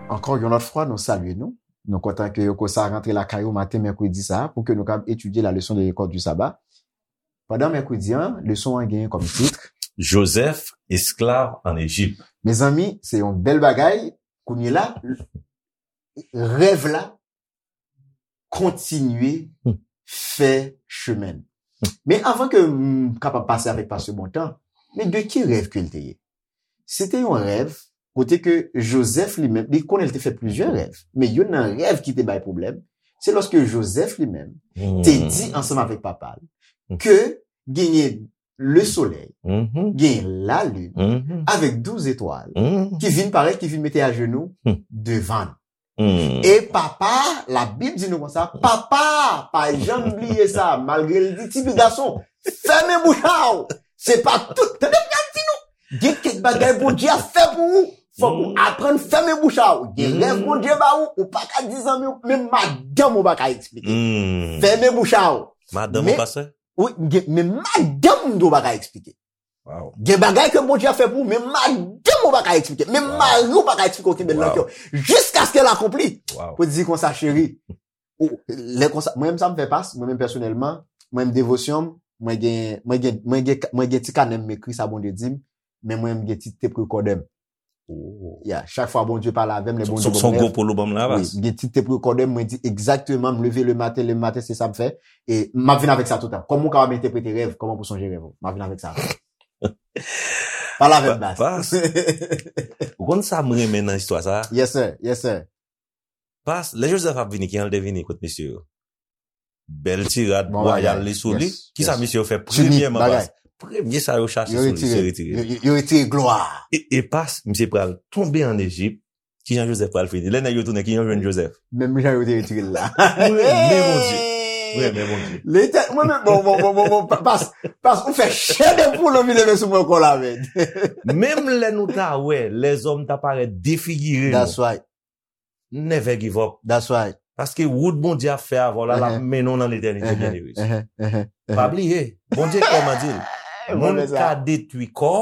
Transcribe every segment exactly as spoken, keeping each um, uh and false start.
Ankò yon lòt fwa, nou salye nou. Nou kontan ke yo konsa rantre lakay ou maten mèkredi sa a pou ke nou kapab etidye la leçon de l'école du sabbat. Pandan mèkredi an, leson an genyen kòm tit Joseph, esclave en Égypte. Mezanmi, se yon bèl bagay. Kounye la, rèv la kontinye fè chemen l. Men avan ke m kapab pase avèk pastè Bontan, men de ki rèv ke l te ye? Se te yon rèv kote ke Joseph li menm, li konnen l te fè plizyè rèv, men youn nan rèv ki te bay pwoblèm, se lòske Joseph li menm te di ansanm avèk papa l ke genyen le solèy, genyen lalin, avèk douz etwal, ki vin parèt, ki vin mete ajenou devan l. E papa, Labib di nou konsa, papa, pa janm bliye sa, malgre l di, "Ti fi gason, fèmen bouch a w." Se pa tout, tande m ap di nou, gen kèk bagay Bondye ap fè pou ou, fòk ou aprann fèmen bouch a w. Gen rèv Bondye ba ou, ou pa ka di zanmi w, menm madanm ou pa ka eksplike. Fèmen bouch a w. Madanm ou, pastè? Wi, gen, men madanm m tou pa ka eksplike. Gen bagay ke Bondye ap fè pou ou, men madanm ou pa ka eksplike, men mari ou pa ka eksplike, ou kenbe l nan kè w. Jiskaske l akonpli. Pou di konsa, cheri, ou, lè konsa, mwen menm sa m fè pas, mwen menm pèsonèlman, mwen menm devosyon m, mwen gen, mwen gen, mwen gen, mwen gen ti kanè m ekri sa Bondye di m, men mwen menm gen ti tep rekòdè m. Ya, chak fwa Bondye pale avè m, lè Bondye ban m rèv. Son gwo polo ban m la, wi, pas. M gen ti tep rekòdè m, mwen di egzakteman, m leve le maten, le maten, se sa m fè. E m ap vin avèk sa toutan. Kòman ou kapab entèprete rèv? Kòman pou sonje rèv ou? M ap vin avèk sa. Pale avè m, pas. Pas. Ou konn sa m renmen nan istwa sa? Yes, sir. Yes, sir. Pas, lè Joseph ap vini, kijan l te vini kot mesye yo? Bèl ti rad wayal li sou li. Kisa misye yo fè premyèman, pas? Premye sa yo chache sou li, se retire. Yo retire glwa. E, e pas, misye pral tonbe ann Ejip. Kijan Joseph pral fini? Lè nèg yo tounen, kijan yo jwenn Joseph? Menm jan yo te retire l la. Mwen renmen Bondye. Mwen renmen Bondye. Letè-, mwen menm, bon, bon, bon, bon, bon, pa-, pas, pas, ou fè chè de poul anvi leve sou mwen ankò la, men. Menm lè nou ta wè lèzòm ta parèt defigire nou. That's right. Never give up. That's right. Paske wout Bondye ap fè avè w la, l ap mennen w nan letènite, byeneme. Pa bliye, Bondye klèman di l, moun ka detwi kò,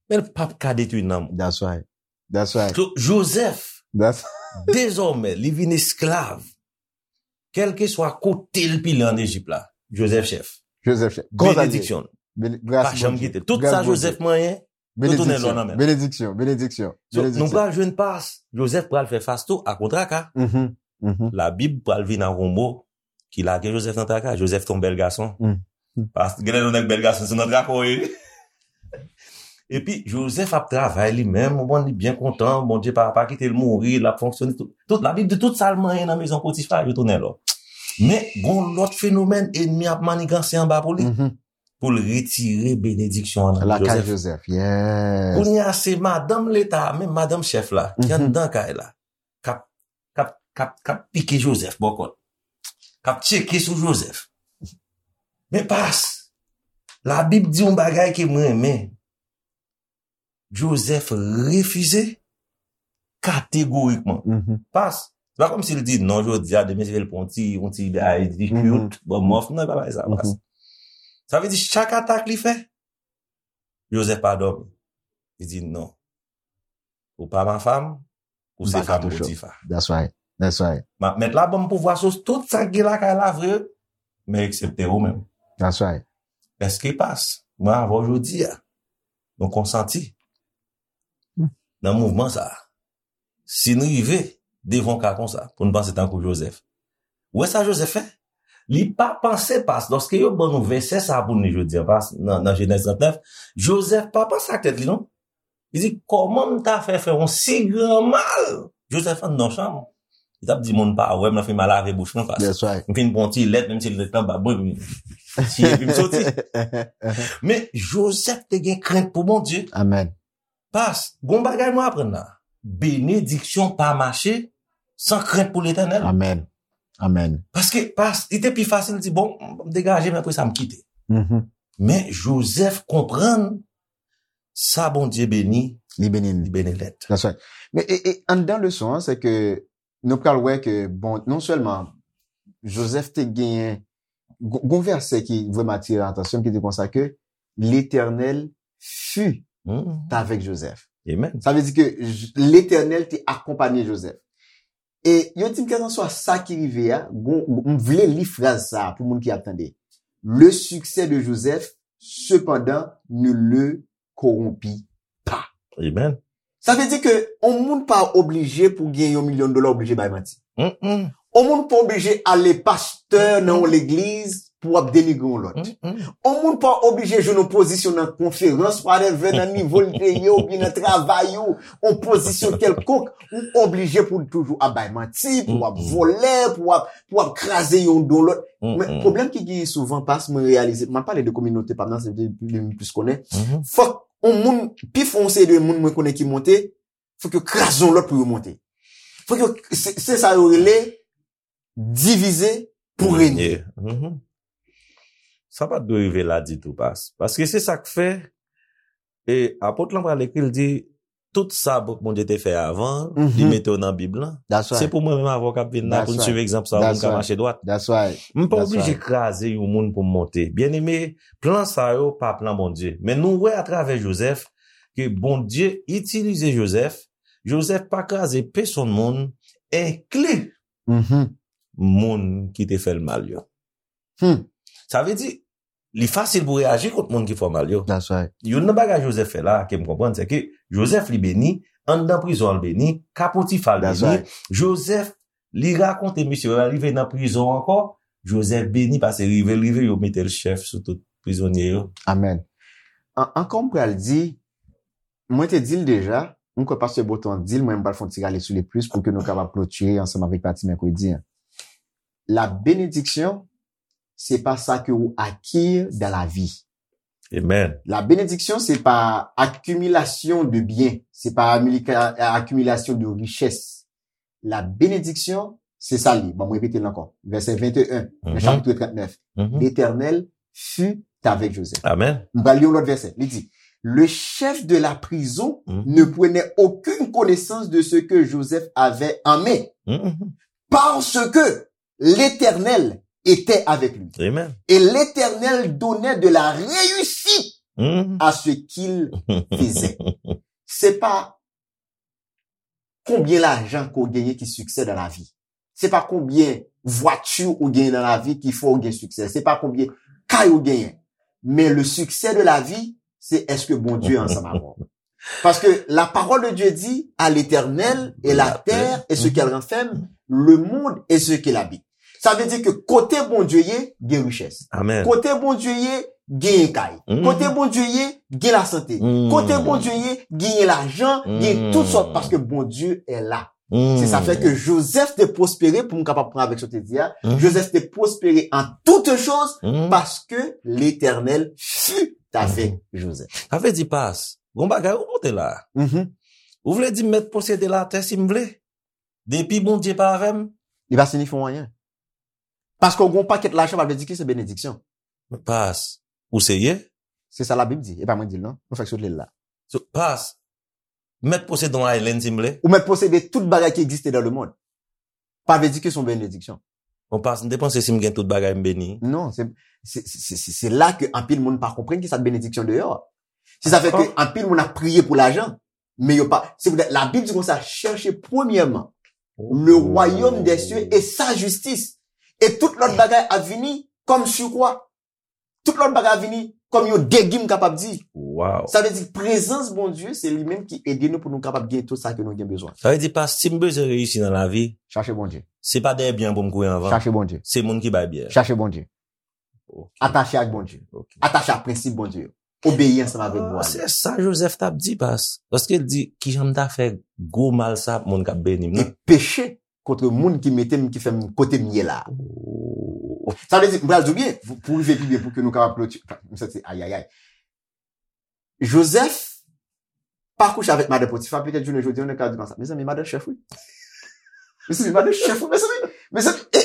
men l p ap ka detwi nanm ou. That's right. That's right. So, Joseph, dezòmè, li vin esklav. Kèlkeswa kote l pile ann Ejip la, Joseph chèf. Joseph chèf. Benediksyon l. Pa janm kite l. Tout sa Joseph manyen, yo tounen lò nan men l. Benediksyon, benediksyon, benediksyon. So, nou pral jwenn pas, Joseph pral fè fas tou a gwo traka. Labib pral vin ak yon mo ki lage Joseph nan traka. Joseph te yon bèl gason. Pas, genlè yon nèg bèl gason, se nan traka w ye. Epi, Joseph ap travay li menm, ou konn li byen kontan, Bondye pa, pa kite l mouri, l ap fonksyone. Tout, tout, Labib di tout sa l manyen nan mezon Potifa, yo tounen lò. Men, gon lòt fenomèn, ènmi ap maniganse anba pou li. Pou l retire benediksyon an nan lakay Joseph. Yes. Kounye a, se madanm leta a, menm madanm chèf la, ki anndan kay la, k ap, k ap, k ap, k ap pike Joseph bò kòt, k ap tcheke sou Joseph. Men pas, Labib di yon bagay ke m renmen. Joseph refize kategorikman. Pas, se pa kòmsi l di non jodi a, demen se l pran yon ti, yon ti bagay di cute, bon, mòf, non, e pa bagay sa, pas. Sa vle di, chak atak li fè, Joseph pa dòmi. Li di, "Non. Ou pa ma femme, ou se fanm Potifa." That's right. That's right. M ap mèt la ban m pouvwa sou tout sa k gen lakay la vre, men eksepte ou menm. That's right. Èske pas, mwen avè w jodi a, nou konsanti nan mouvman sa a? Si n rive devan yon ka konsa, pou n panse tankou Joseph. Ou wè sa Joseph fè? Li pa panse pas, lòske yo ban nou vèsè sa a pou n li jodi a, pas, nan, nan Jenèz trannèf, Joseph pa panse ak tèt li, non. Li di, "Kòman m ta fè fè yon si gran mal?" Joseph anndan yon chanm. Li t ap di, "Moun pa wè m, nan fin m a lave bouch mwen, pas. That's right. M fin pran yon ti lèt, menm si lèt lan bab mwen, m siye epi m soti." Men, Joseph te gen krent pou Bondye. Amen. Pas, gon bagay nou aprann la. Benediksyon pa mache san krent pou Letènèl. Amen. Amen. Paske, pas, li te pi fasil di, "Bon, m degaje, men apre sa, m kite." Men Joseph konprann sa Bondye beni, li beni, li beni nèt. That's right. Men, e, e, anndan leson an, se ke nou pral wè ke, bon, non sèlman Joseph te genyen, gon gon vèsè ki vrèman atire atansyon m, ki di konsa ke Letènèl fut avèk Jozèf. Amen. Sa vle di ke J- Letènèl te akonpanye Jozèf. E yo di m, kèlkanswa sa ki rive a, gon, m vle li fraz sa a pou moun ki ap tande. Le succès de Joseph, cependant, ne le corrompit pas. Amen. Sa vle di ke yon moun pa oblije pou gen yon milyon dola oblije bay manti. Mm-mm. Yon moun pa oblije ale pastè nan yon legliz pou w ap denigre yon lòt. Mm-mm. Yon moun pa oblije jwenn yon pozisyon nan konferans, whatever, nan nivo l te ye, oubyen nan travay ou, yon pozisyon kèlkonk, ou oblije pou w toujou ap bay manti, pou w ap Mm-mm. vòlè, pou w ap, pou w ap kraze yon do lòt. Men Mm-mm. pwoblèm ki genyen souvan, pas, mwen reyalize, m ap pale de kominote pa m nan, se li m plis konnen. Mhm. Fòk yon moun, pi fò yon seri de moun mwen konnen ki monte, fòk yo kraze yon lòt pou yo monte. Fòk yo, se se sa yo rele divize pou renye. Yeah. Mhm. Sa pa t dwe rive la ditou, pas. Paske se sa k fè, e apot lan pral ekri, l di, tout sa Bondye te fè avan, li Mhm. mete yo nan Bib lan. That's right. Se pou mwen menm avè w k ap vin la, That's pou n right. swiv egzanp sa, pou That's n ka right. mache dwat. That's right. M pa That's oblije right. kraze yon moun pou m monte. Byeneme, plan sa yo pa plan Bondye. Men nou wè atravè Jozèf ke Bondye itilize Jozèf. Jozèf pa kraze pèsonn moun, enkli Mhm. moun ki te fè l mal yo. Hmm. Sa vle di, li fasil pou reyaji kont moun ki fè w mal yo. That's right. Youn nan bagay Jozèf fè la, ke m konprann, se ke Jozèf li beni, anndan prizon an l beni, ka Potifa l That's beni. Right. Jozèf, li rakonte misye, lè l rive nan prizon ankò, Jozèf beni, paske rive l rive, yo mete l chèf sou tout prizonye yo. Amen. An- Ankò m pral di, mwen te di l deja, m kwè pastè Boton di l, mwen m pral fè yon ti rale sou li plis pou ke nou kapab klotire ansanm avèk pati mèkredi an. La bénédiction, c'est pas ça que ou acquiert dans la vie. Amen. La bénédiction, c'est pas accumulation de biens, c'est pas amilika- accumulation de richesse. La bénédiction, c'est ça li. Bon, mwen repete l ankò. Vèsè venteyen, nan Mhm. chapitre trente-neuf. Mhm. L'Éternel fut avec Joseph. Amen. M pral li yon lòt vèsè. Li di, le chef de la prison Mhm. ne prenait aucune connaissance de ce que Joseph avait en main, Mhm. parce que l'Éternel était avec lui. Amen. Et l'Éternel donnait de la réussite Mhm. à ce qu'il faisait. Se pa konbyen lajan ke w genyen ki siksè dan lavi. Se pa konbyen vwati ou genyen nan lavi ki fè w gen siksè. Se pa konbyen kay ou genyen. Men le succès de la vie, c'est est-ce que Bondye ansanm avè w. Parce que la parole de Dieu dit, à l'Éternel et la terre et ce qu'elle renferme, le monde et ce qu'il habite. Sa vle di ke kote Bondye ye, gen richès. Amen. Kote Bondye ye, gen kay. Mhm. Kote Bondye ye, gen lasante. Mhm. Kote Bondye ye, gen lajan, gen tout sòt, Mhm. paske Bondye est là. Mhm. Se sa fè ke Joseph te pwospere, pou m kapab pran avèk sa w te di a, Mhm. Joseph te pwospere an toute chose Mhm. paske l'Éternel fut avec Joseph. Sa vle di, pas, gon bagay ou monte la. Mhm. Ou vle di m mèt posede latè si m vle? Depi Bondye pa avè m? Li pa siyifi anyen. Paske w gen yon pakèt lajan, pa vle di ke se benediksyon. Pas, ou serye? Se sa Labib di, e pa mwen di l non. Nou fèk sot li la. So, pas, m mèt posede yon island si m vle? Ou mèt posede tout bagay ki egziste dans le monde. Pa vle di ke se yon benediksyon. Bon, pas, m te panse si m gen tout bagay m beni. Non, se se- se- se- se- se la ke anpil moun pa konprann ki sa benediksyon deyò. Se sa fè ke anpil moun ap priye pou lajan, men yo pa. Se poutèt Labib di konsa, cherchez premièrement le royaume des cieux et sa justice. E tout lòt bagay ap vini kòm sirkwa. Tout lòt bagay ap vini kòm yon degi, m kapab di. Wow. Sa vle di prezans Bondye, se li menm ki ede nou pou nou kapab gen tout sa ke nou gen bezwen. Sa vle di, pas, si m bezwen reyisi nan lavi, Chache Bondye. se pa dèyè byen pou m kouri anvan. Chache Bondye. Se moun ki bay byen. Chache Bondye. Ok. Atache ak Bondye. Ok. Atache ak prensip Bondye yo. Obeyi ansanm avèk Ah, vwa. se sa Joseph t ap di, pas. Paske l di, kijan m ta fè gwo mal sa ap moun k ap beni m E nan? Peche kont moun ki mete m, ki fè m kote m ye la. Oh. Sa vle di, m pral di w byen, pou pou rive pi byen, pou ke nou kapab kloti. M santi, ayayay. Joseph pa kouche avèk madan Potifa, petèt jounen jodi a, nou ka di konsa. Mezanmi, madan chèf, wi. Mezanmi, madan chèf, wi, mezanmi. Mezanmi, e,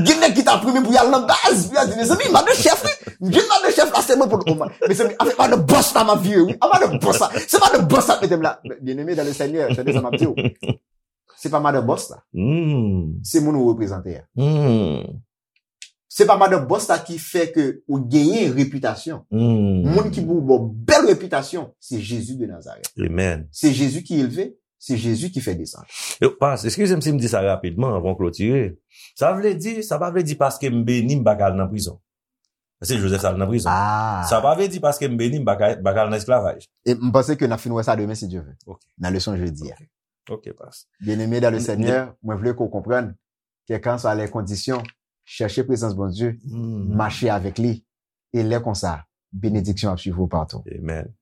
gen nèg ki ta premye pou y al nan baz, pou y al di, mezanmi, madan chèf, wi. Gen madan chèf la, se mwen pou l. Mezanmi, avèk madan bòs la, m ap vire, wi. A madan bòs la. Se madan bòs la k mete m la. Byeneme dan le Senyè, tande sa m ap di w. Se pa madan bòs la. Hmm. Se moun ou reprezante a. Hmm. Se pa madan bòs la ki fè ke ou genyen repitasyon. Moun ki pou ba w bèl repitasyon, se Jezi de Nazarèt. Amen. Se Jezi ki elve, se Jezi ki fè desann. Yo, pas, eskize m si m di sa rapidman anvan w klotire. Sa vle di, sa pa vle di paske m beni m pa ka al nan prizon. Paske Joseph al nan prizon. Ah. Sa pa vle di paske m beni m pa ka pa ka al nan esklavaj. E m panse ke n ap fin wè sa demen si Dye vle. Ok. Nan leson jedi a. Ok, pas. Bien-aimé dans le M- Seigneur, mwen vle ke w konprann, quelles que soient les conditions, chèche prezans Bondye, Hmm. mache avèk li. E lè konsa, benediksyon ap swiv ou patou. Amen.